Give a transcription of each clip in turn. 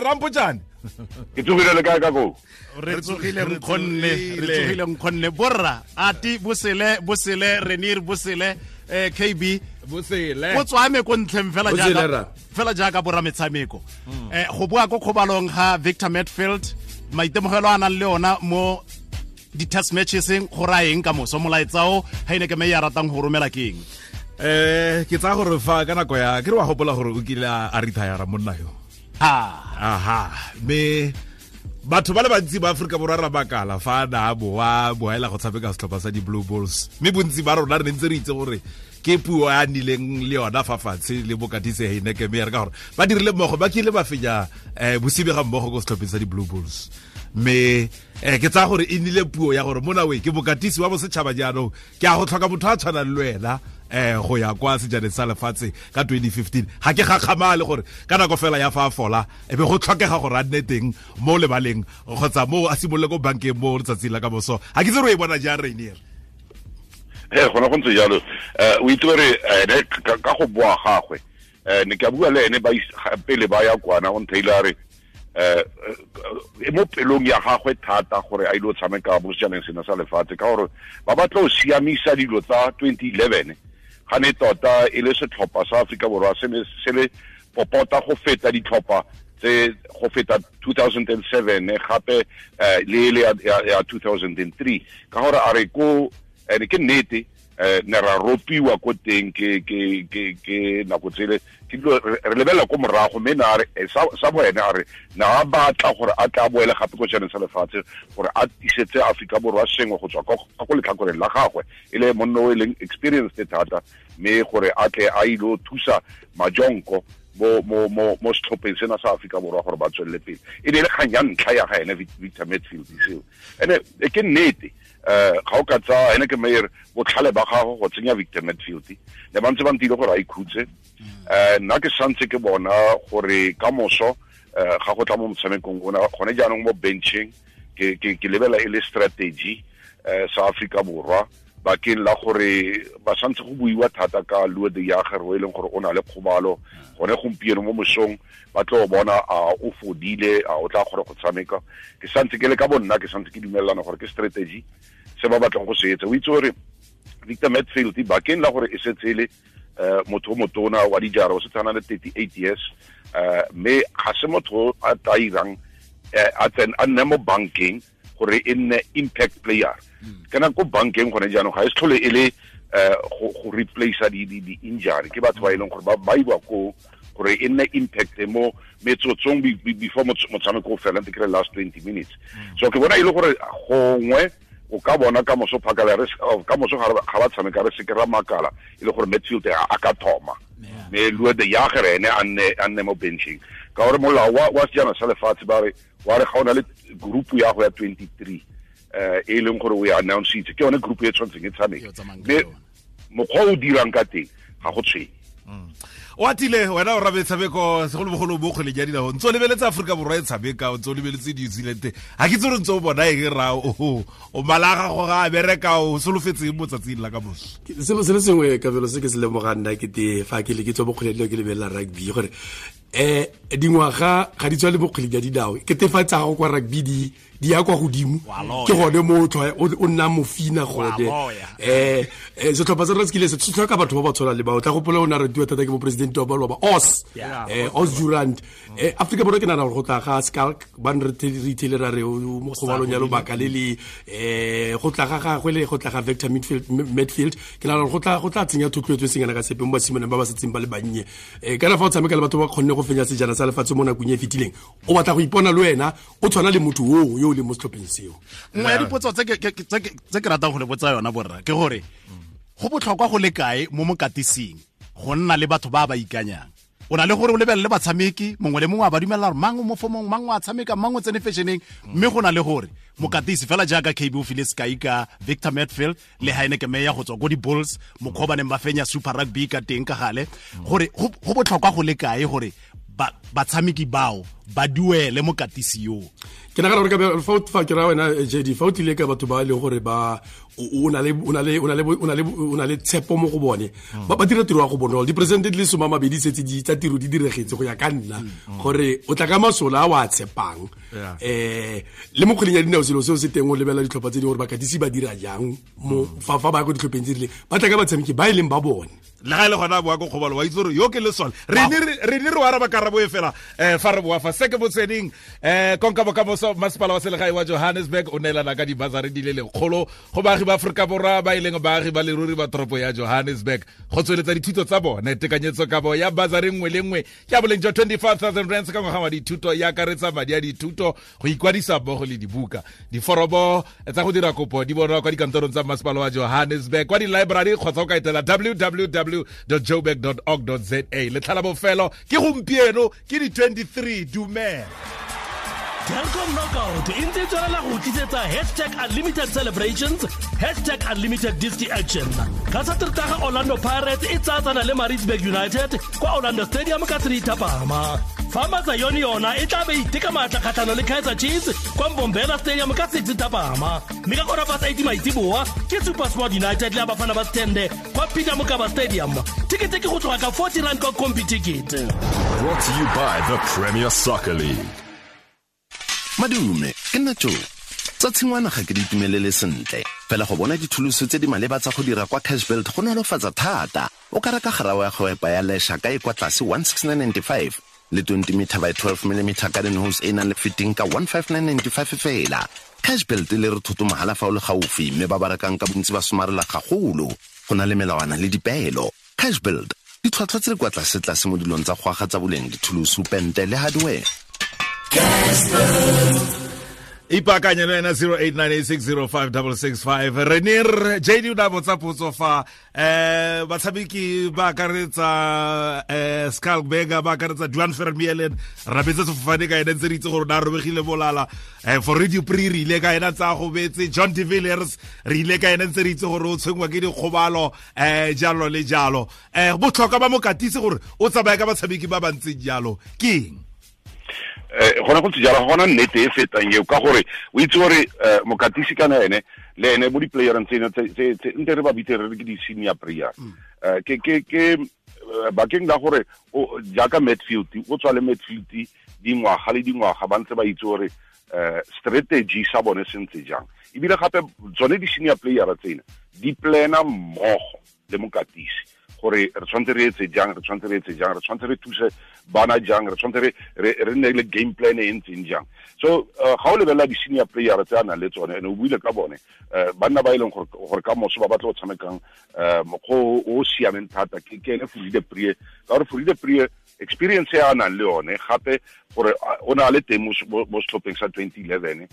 Rampotšane. Ke tsogile le kae ka koo? Re tsogile nkgonne, re tsogile nkgonne. Borra, ati bosele, bosele, Renir bosele, KB bosele. O tswame ko ntlheng fela jaaka fela jaaka borra metshameko. Go boa ko kgobalong ga Victor Matfield, maitemogelo a nang le ona mo di-test matcheseng go raya eng ka moso, molaetsa o Heyneke Meyer a ratang go romela ke eng? Ke tsaya gore fa ka nako ya ke re wa gopola gore o kile a retire monna yo. Aha, me batho ba le bantsi ba Afrika Borwa ra bakala fa na boa boela go tshameka setlhopha sa di Blue Bulls, mme bontsi ba rona re ne ntse re itse gore ke puo a nileng le yona fa fatshe le bokatise Heyneke Meyer, ka gore ba dirile mmogo, ba kile ba fenya bosibe ga mmogo ko setlhopheng sa di Blue Bulls. Mme ke tsaya gore e nnile puo ya gore mona we ke bokatisi wa bosetšhaba jaanong, ke a go tlhoka motho a tshwanang le wena go ya kwa sejaneng sa lefatshe ka 2015. Ga ke gakgamale gore ka nako fela ya fa a fola e be go tlhokega gore a nne teng mo lebaleng kgotsa mo a simolole ko bankeng mo letsatsing la ka moso. Ga ke itse gore o e bona jang, Rainier. Gona go ntse jalo. O itse gore ene ka go boa gagwe, ne ke a bua le ene pele ba ya kwana, o ntheile a re e mo pelong ya gagwe thata gore a ile go tshameka mo sejaneng sena sa lefatshe, ka gore ba batla go siamisa dilo tsa 2011. Ga ne tota e le setlhopha sa Afrika Borwa se ne se le popota go feta ditlhopha tse go feta 2007 gape le le ya 2003, ka gore a re ko ene ke nnete ne ra ropiwa ko teng ke ke ke ke nako tsele ke dilo re lebelela ko morago, mme na re sa bo ene a re na a batla gore a tla boele gape ko sejaneng sa lefatshe gore a tisetse Afrika Borwa sengwe go tswa ko letlhakoreng la gagwe, e le monna o e leng experienced thata, mme gore a tle a ile thusa majonko mo mo mo mo setlhopheng sena sa Afrika Borwa gore ba tswelele pele. E ne e le kgang ya ntlha ya ga ene Victor Matfield seo, ene ke nnete. Ga o ka tsaya Heyneke Meyer botlhale ba gago go tsenya Victor Matfield, ne ba ntse ba ntile gore a ikhutse. Nna ke santse ke bona gore ka moso ga go tla mo motshamekong ona gone jaanong mo benching, ke lebela e le strategy sa Afrika Borwa bakeng la gore ba santse go buiwa thata ka Lood de Jager, o e leng gore o na le kgobalo gone gompieno mo mosong, ba tlo bona a o fodile, a o tla kgona go tshameka. Ke santse ke le ka bonna, ke santse ke dumelelana gore ke strategy se ba batlang go se etsa. O itse gore Victor Matfield bakeng la gore e setse e le motho o motona wa dijara, o setse a na le 38 years, mme ga se motho a tla irang a nne mo bankeng gore e nne impact player. Kana ko bankeng gone jaanong ga e se tlhole e le go replace di injury, ke batho ba e leng gore ba iwa ko gore e nne impact mo metsotsong before motshameko o fela, ntse ke re last 20 minutes. So ke bona e le gore gongwe o ka bona ka moso phakala re ka moso ga ba tshameka re seke ra makala e le gore Matfield a ka thoma, mme Lood de Jager ene a nne mo benching, ka gore molao wa sejana sa lefatshe ba re wa re ga o na le group ya go ya 23 e leng gore o e announce-itse, ke yone group e tshwanetseng e tshameke, mme mokgwa o dirang ka teng ga go tshwenye. O atile wena o rabe tshameko segolobogolo mo kgweleng ya dinao, ntse o lebeletse Afrika Borwa e tshameka, o ntse o lebeletse New Zealand, ga ke itse gore ntse o bona eng ra o mala gago ga a bereka, o solofetseng mo tsatsing la ka moso? Selo se le sengwe kabelo se ke se lemogang nna ke te fa ke le ke tswa mo kgweleng ya dinao ke lebelela rugby, gore dingwaga ga di tswa le mo kgweleng ya dinao, ke tefatsa gago kwa rugby di ya kwa godimo, ke gone mo o nna mofina gone. Setlhopha sa rona se kile se tlhoka batho ba ba tshwanang le bao. Tla gopola o ne a ratiwa thata ke moporesidente wa baloba Os, Os Durant. Afrika Borwa ke nagana gore go tla ga Schalk ba ne re ithele ra re mo kgobalong ya lobaka le le go tla ga gagwe le go tla ga Victor Matfield, ke nagana gore go tla tsenya thotloetso e seng kana ka sepe mo basimaneng ba ba setseng ba le bannye. Kana fa o tshameka le batho ba kgonne go fenya sejana sa lefatshe mo nakong e e fetileng, o batla go ipona le wena o tshwana le motho oo yo o leng mo setlhopheng seo. Nngwe ya dipotso tse ke ratang go le botsa yona borra ke gore go botlhokwa go le kae mo mokatising go nna le batho ba ba ikanyang? O na le gore o lebelele batshameki, mongwe le mongwe a ba dumela gore mang o mo fomong, mang o a tshameka, mang o tsene fashion-eng, mme go na le gore mokatisi fela jaaka KB o file sekai ka Victor Matfield le Heyneke Meyer go tswa ko di-Bulls, mokgwa o ba neng ba fenya Super Rugby ka teng ka gale, gore go botlhokwa go le kae gore Batshameki bao ba duele mokatisi yo. Ke nagana gore ka fa ke ra wena JD, fa o tlile ka batho ba e leng gore ba o na le tshepo mo go bone, ba dira tiro ya go bonolo. Diperesente di le 20 setse di tsa tiro di diregetse go ya ka nna, gore o tla ka masola a o a tshepang. Le mo kgweleng ya dinao selo seo se teng, o lebelela ditlhopha tse dingwe gore bakatisi ba dira jang mo fa ba ya ko ditlhopheng tse rileng, ba tla ka batshameki ba e leng ba bone. Le ga e le gona boa ko kgobalo, wa itse gore yo ke lesole. Re ne re o araba karabo e fela fa re boa fa se ke motsweding. Konka bokamoso, masepala wa selegae wa Johannesburg o neelana ka dibasari di le lekgolo go baagi ba Aforika Borwa ba e leng baagi ba leruri ba toropo ya Johannesburg go tsweletsa dithuto tsa bone. Tekanyetso kabo ya basari nngwe le nngwe ke ya boleng jwa 25,000 rands ka ngwaga wa dithuto, ya akaretsa madi a dithuto, go ikwadisa mmogo le dibuka. Diforomo tsa go dira kopo di bonwa kwa dikantorong tsa masepala wa Johannesburg, kwa di-library kgotsa o ka etela www.joburg.org.za. Letlha la bofelo ke gompieno, ke di-23. Dumela. Telkom Knockout e ntse e tswelela go tlisetsa #unlimited celebrations, #unlimited disc action. Ka Satertaga Orlando Pirates e tsatsana le Maritzburg United kwa Orlando Stadium ka 3 thapama. Fa Matsayone yona e tla be iteka maatla kgatlhano le Kaizer Chiefs kwa Mbombela Stadium ka 6 thapama. Mme ka 8:15 maitsiboa ke SuperSport United le Abafana ba Stende kwa Peter Mokaba Stadium. Ticket ke go tloga ka 40 rand kwa Combi Ticket. Brought to you by the Premier Soccer League. Madume, ke nna Joe. Tsa tshingwana ga ke di itumelele sentle. Fela go bona dithuluso tse di maleba tsa go dira kwa Cashbuild go nolofatsa thata. O ka reka garawe ya go epa ya lesha ka e kwa tlase 16995 le 20 meter by 12 mm garden hose e nang le fitting ka 15995 fela. Cashbuild le re thoto mahala fa o le gaufi, mme ba ba rekang ka bontsi ba somarela gagolo. Go na le melawana le dipeelo. Cashbuild, ditlhwatlhwa tse di kwa tlase tlase mo dilong tsa go aga tsa boleng, dithuluso, pente le hardware. Ipaakanye le wena 0898605665. Re ne re JD o ne a botsa potso fa batshameki ba akaretsa Schalk Burger, ba akaretsa Duan Vermeulen, rabetse sefofane ka ene ntse re itse gore o ne a robegile bolala. Fourie du Preez re ile ka ena tsa gobetse, John de Villiers re ile ka ena ntse re itse gore o tshwenngwa ke dikgobalo, jalo le jalo. Botlhokwa ba mokatisi gore o tsamaye ka batshameki ba ba ntseng jalo ke eng? Gona go ntse jalo, ga gona nnete e fetang eo, ka gore o itse gore mokatisi kana ene le ene mo di-playereng tseno tse nte re ba bitse re re ke di-senior player. Ke bakeng la gore jaaka Matfield, o tswa le Matfield dingwaga le dingwaga, ba ntse ba itse gore strategy sa bone se ntse jang. Ebile gape tsone di-senior player tsena di plana mmogo le mokatisi gore re tshwanetse re etse jang, re tshwanetse re etse jang, re tshwanetse re thuse bana jang, re tshwanetse re nne le game plan e ntseng jang. So ga o lebelela di-senior player tse a nang le tsone, and o buile ka bone, banna ba e leng gore ka moso ba batla go tshamekang mokgwa o siameng thata, ke ene Fourie du Preez, ka gore Fourie du Preez experience e a nang le yone, gape gore o ne a le teng mo setlhopheng sa 2011,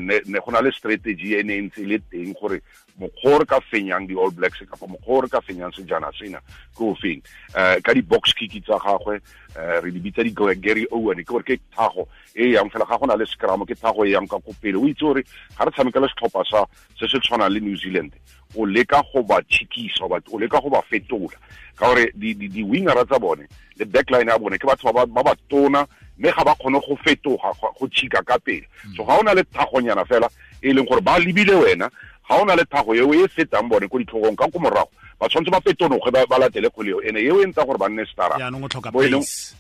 ne go na le strategy e ne e ntse e le teng gore mokgwa o re ka fenyang di-All Blacks kapa mokgwa o re ka fenyang sejana sena ke o feng. Ka di-box kick tsa gagwe, re di bitsa di-Gary Owen, ke gore ke thago e yang fela ga go na le scrum, ke thago e yang ka ko pele. O itse gore ga re tshameka le setlhopha sa se se tshwanang le New Zealand, o leka go ba tšhikisa, o leka go ba fetola, ka gore di-wingera tsa bone le backline ya bone ke batho ba ba tona, mme ga ba kgone go fetoga go tšhika ka pele. So ga o na le thagonyana fela e leng gore ba lebile wena, ga o na le thago eo e fetang bone ko ditlhogong ka ko morago, ba tshwanetse ba fetonoge ba latele kgwele eo, ene eo e ntsa gore ba nne stara. Jaanong o tlhoka Bo e leng pace.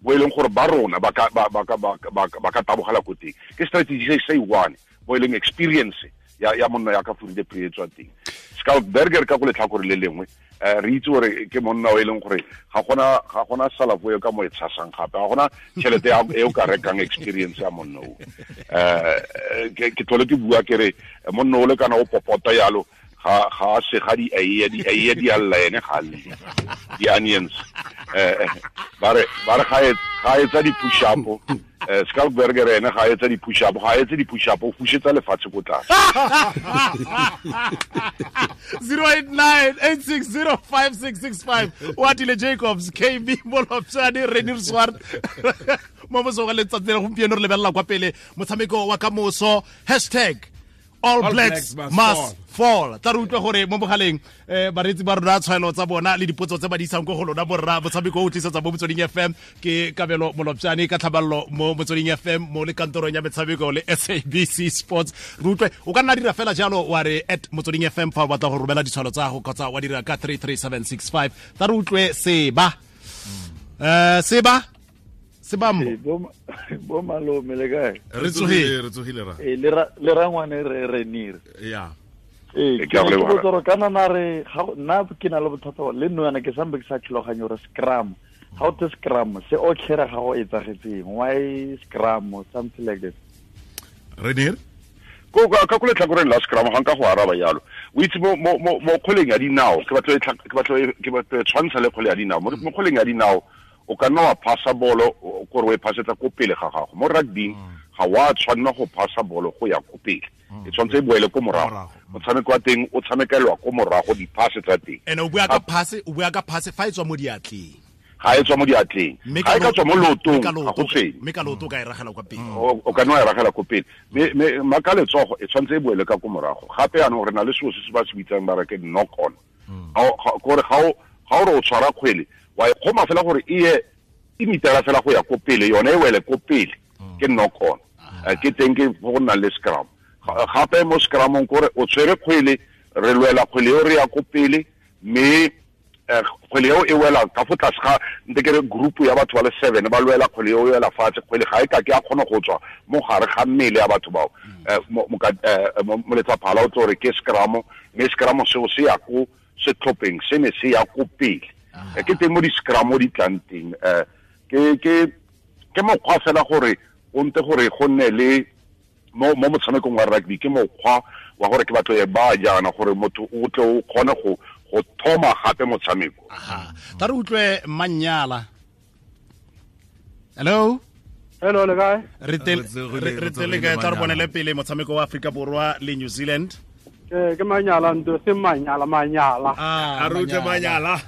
bo e leng gore ba rona ba ka tabogela ko teng. Ke strategy se se one, bo e leng experience ya monna ya ka Fourie du Preez tswa teng. Schalk Burger ka go letlhakore le lengwe, re itse gore ke monna o e leng gore ga gona salafo e ka mo e tshasang gape, ga gona tšhelete e o ka rekang experience ya monna o. Ke tlhole ke bua ke re monna o le kana o popota yalo, ga a sega di eiye, di eiye di a lla ene ga a lle. Di-onions. Ba re ga etsa di-push up, Schalk Burger ene ga etsa di-push up, ga etse di-push up, o fusetsa lefatshe ko tlase. 089-860-5665. Oatile Jacobs, KB Molopjane, Renier Swart. Mo mosong wa letsatsi la gompieno re lebelela kwa pele motshameko wa kamoso, hashtag All Blacks must fall. Tla re utlwe gore mo mogaleng bareetsi ba rona tshwaelo tsa bona le dipotso tse ba di isang ko go lona borra. Motshameko o tlisetsa mo Motsweding FM ke Kabelo Molopjane ka tlhaballo mo Motsweding FM mo le kantorong ya metshameko le SABC Sports. Re utlwe o ka nna dira fela jalo wa re at Motsweding FM fa o batla go romela ditshwalo tsa gago kgotsa wa dira ka 33765. Tla re utlwe Seba. Seba Sebambo. Bo malome le kae? Re tsogile ra. Le rangwane re nire. Yeah. Ke a leboga. Ke kana na re nna ke na le bothata le nna yana ke sambe ke sa tlhaloganye gore scrum. How to scrum se o tlhera ga go etsagetseng. Why scrum or something like that? Renir? Ko ka go letlhakoreng la scrum ga nka go araba yalo. O itse mo kgweleng ya dinao, ke batla tshwantsha le kgwele ya dinao. Mo kgweleng ya dinao o ka nna wa phasa bolo gore o e phasetsa ko pele ga gago. Mo rugby ga wa tshwanna go phasa bolo go ya ko pele. E tshwanetse e boele ko morago. Motshameko wa teng o tshamekelwa ko morago diphase tsa teng. Ene o bua ka phase fa e tswa mo diatleng. Ga e tswa mo diatleng. Ga e ka tswa mo lootong ga go tshwenye. Mme ka looto o ka e ragela kwa pele. O ka nna wa e ragela ko pele. Mme ka letsogo e tshwanetse e boele ka ko morago. Gape jaanong re na le selo se se ba se bitsang ba re ke knock on. Gore ga o re o tshwara kgwele wa e kgoma fela gore e ye e mitela fela go ya ko pele, yone e wele ko pele ke knock on. Ke teng ke go nna le scrum. Gape mo scrumong kore o tshwere kgwele, re lwela kgwele eo re ya ko pele, mme kgwele eo e wela ka fo tlase ga nte ke re group ya batho ba le 7 ba lwela kgwele eo e wela fatshe. Kgwele ga e ka ke a kgona go tswa mo gare ga mmele ya batho bao. Moletsaphala o tlo re ke scrum, mme scrum seo se ya ko setlhopheng se ne se ya ko pele. Ke teng mo di-scrum di tlang teng. Ke mokgwa fela gore o nte gore go nne le mo motshamekong wa rugby, ke mokgwa wa gore ke batlo e ba jaana gore motho o tle o kgone go thoma gape motshameko. Aha. Tla re utlwe Manyala. Hello. Hello, le kae? Re tele kae? Tla re bonele pele motshameko wa Afrika Borwa le New Zealand. Ke Manyala ntho se Manyala Manyala. A re utlwe Manyala.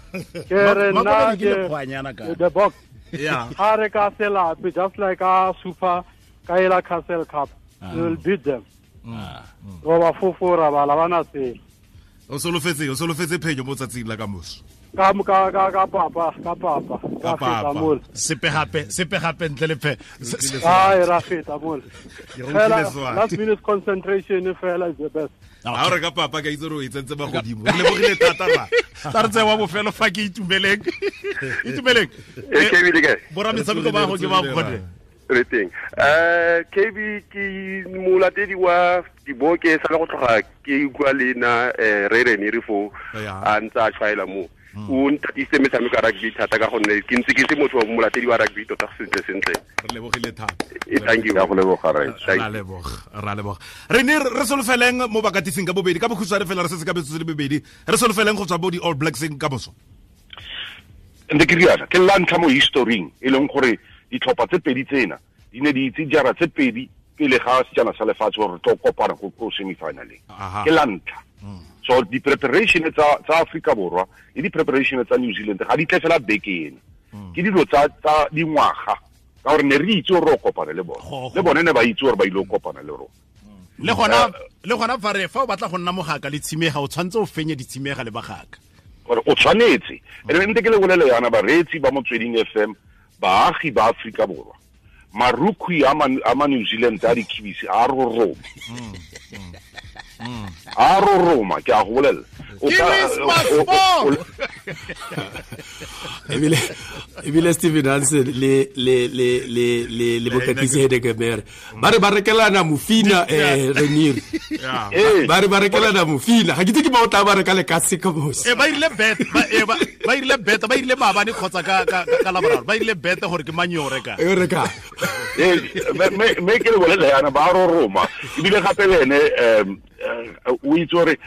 Ke re nna ke the box. Yeah. Ha re ka selape just like a super Kaela Castle Cup. We will beat them. Roba fofora ba la bana se. O solofetse phenyo mo tsatsing la kamoso. Ka papa ka feta mole. Sepe gape ntle le phe. Ai ra feta mole. Last minute concentration fela is the best. Ha re ka papa ka itse re o itsentse ba godimo. Re lebogile thata ba. Tla re tsewa bofelo fa ke Itumeleng. Itumeleng. E ke bile kae? Bora metshameko ba go ke ba kgone. Re teng. KB ke molatedi wa diboke sa le go tloga ke utlwa le na re re fo a ntse a tshwaela mo. O nthatise metshameko ya rugby thata ka gonne ke ntse ke se motho wa molatedi wa rugby tota sentle sentle. Re lebogile thata. Thank you. Go leboga re. Ra leboga. Re ne re solofeleng mo bakatising ka bobedi ka bokhutshwane fela re setse ka metsotso le bobedi. Re solofeleng go tswa bo di All Blacks ka moso. Nte ke riana ke la ntlha mo historing e leng gore ditlhopha tse pedi tsena di ne di itse jara tse pedi pele ga sejana sa lefatshe gore re tlo kopana ko semifinaleng. Ke la ntlha. So di preparation tsa Afrika Borwa le di preparation tsa New Zealand ga di tle fela beke ena. Ke dilo tsa dingwaga ka gore ne re itse gore re kopana le bone. Le bone ne ba itse gore ba ile go kopana le rona. Le gona fa re fa o batla go nna mogaka le tshimega o tshwanetse o fenye ditshimega le bagaka. Gore o tshwanetse. Ene nte ke le bolele yana bareetsi ba Motsweding FM baagi ba Afrika Borwa. Marukhwi a ma New Zealand a dikhibisi a roroma. A roroma ke a go bolela. Ebile Steven Hansen le bokatisi Hedekemer ba re ba rekelana mofina Renir. Ba re ba rekelana mofina. Ga ke itse ke ba o tla ba reka le ka se ka mose. Ba ile bet ba ile bet ba ile maabane kgotsa ka laboraro ba ile bet gore ke mang yo reka. Yo reka. Me ke le bolela yana ba roroma. Ebile gape le ene o itse gore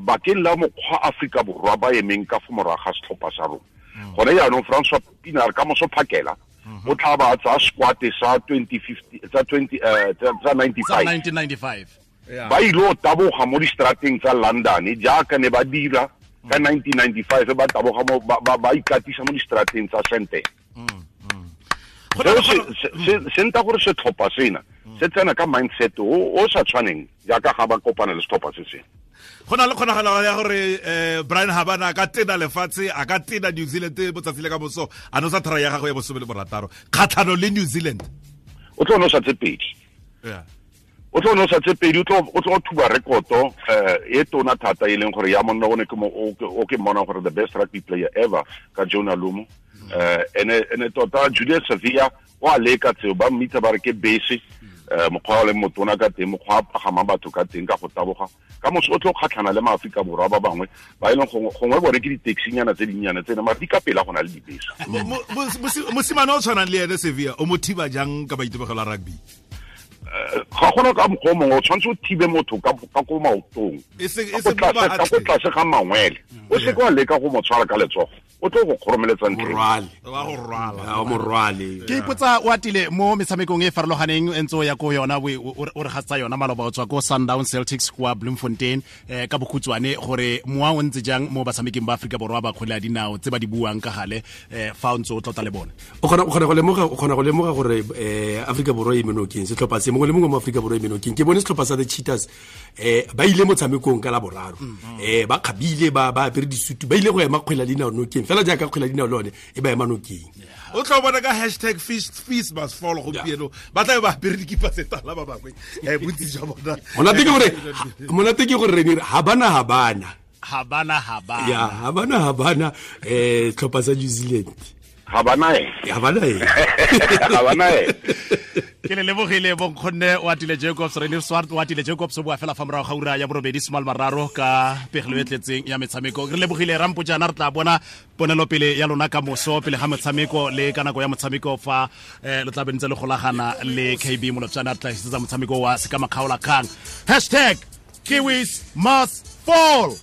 bakeng la mokgwa Afrika Borwa ba emeng ka fo morago ga setlhopha sa rona. Gone jaanong Francois Pienaar ka moso phakela o tla ba tsa squad sa 2050 tsa 20 tsa 1995 ba ile go taboga mo distrateng tsa London jaaka ne ba dira ka 1995 ba taboga mo ba ikatisa mo distrateng tsa Sandton. Se nta gore setlhopha sena Se tsena ka mindset o sa tshwaneng jaaka ga ba kopana le setlhopha se sengwe. Go na le kgonagalo ya gore Brian Habana a ka tena lefatshe, a ka tena New Zealand botsatsi le ka moso, a nosa thara ya gagwe ya 16 kgatlhano le New Zealand. O tlo nosa tse pedi. Yeah. O tlo nosa tse pedi, o tlo thuba rekoto e tona thata e leng gore ya monna o ne ke mo o ke mmona gore the best rugby player ever ka Jonah Lomu. Ene tota Julius Savia o a leka tseo, ba mmitsa ba re ke base, mokgwa o leng motona ka teng, mokgwa a pagamang batho ka teng ka go taboga. Ka moso o tlo kgatlhana le maAforika Borwa ba bangwe ba e leng gongwe bone ke di-taxi-nyana tse dinnyane tsene, mare di ka pela go na le dibese. Mosimane o tshwanang le ene Sevilla, o mo thiba jang ka maitemogelo a rugby? Ga gona ka mokgwa o mongwe, o tshwanetse o thibe motho ka ko maotong, ka ko tlase ga mangwele. O seke wa leka go mo tshwara ka letsogo, o tlo go kgoromeletsa ntleng. Morwale. Ke ipotsa o atile mo metshamekong e farologaneng e ntse o ya ko yona, o re gatsa yona maloba o tswa ko Sundown Celtics kwa Bloemfontein, ka bokhutshwane gore mowa o ntse jang mo batshameking ba Aforika Borwa ba kgwele ya dinao tse ba di buang ka gale, fa o ntse o tlotla le bone? O kgona go lemoga gore Aforika Borwa e menokeng, setlhopha se mongwe le mongwe mo Aforika Borwa e menokeng. Ke bone setlhopha sa the Cheetahs, ba ile motshamekong ka la boraro, ba kgabile, ba apere disutu, ba ile go ema kgwele ya dinao nokeng fela jaaka kgwele ya dinao le yone e ba ema nokeng. O tla bona ka hashtag fees must fall gompieno, ba tla ba apere dikipa tse tala ba bangwe, bontsi jwa bona. Monate ke gore re habana ya habana tlhopha sa New Zealand. Habana e. Ke le lebogile bonkgonne o atile Jacobs, Rene Swart o atile Jacobs, o bua fela fa morago ga ura ya borobedi soma le mararo ka pegelo e tletseng ya metshameko. Re lebogile Rampojana, re tla bona ponelopele ya lona ka moso pele ga motshameko le ka nako ya motshameko fa le tla be ntse le golagana le KB Molopjana, re tla isetsa motshameko wa Sekamakgaola Kgang. Hashtag Kiwis must fall.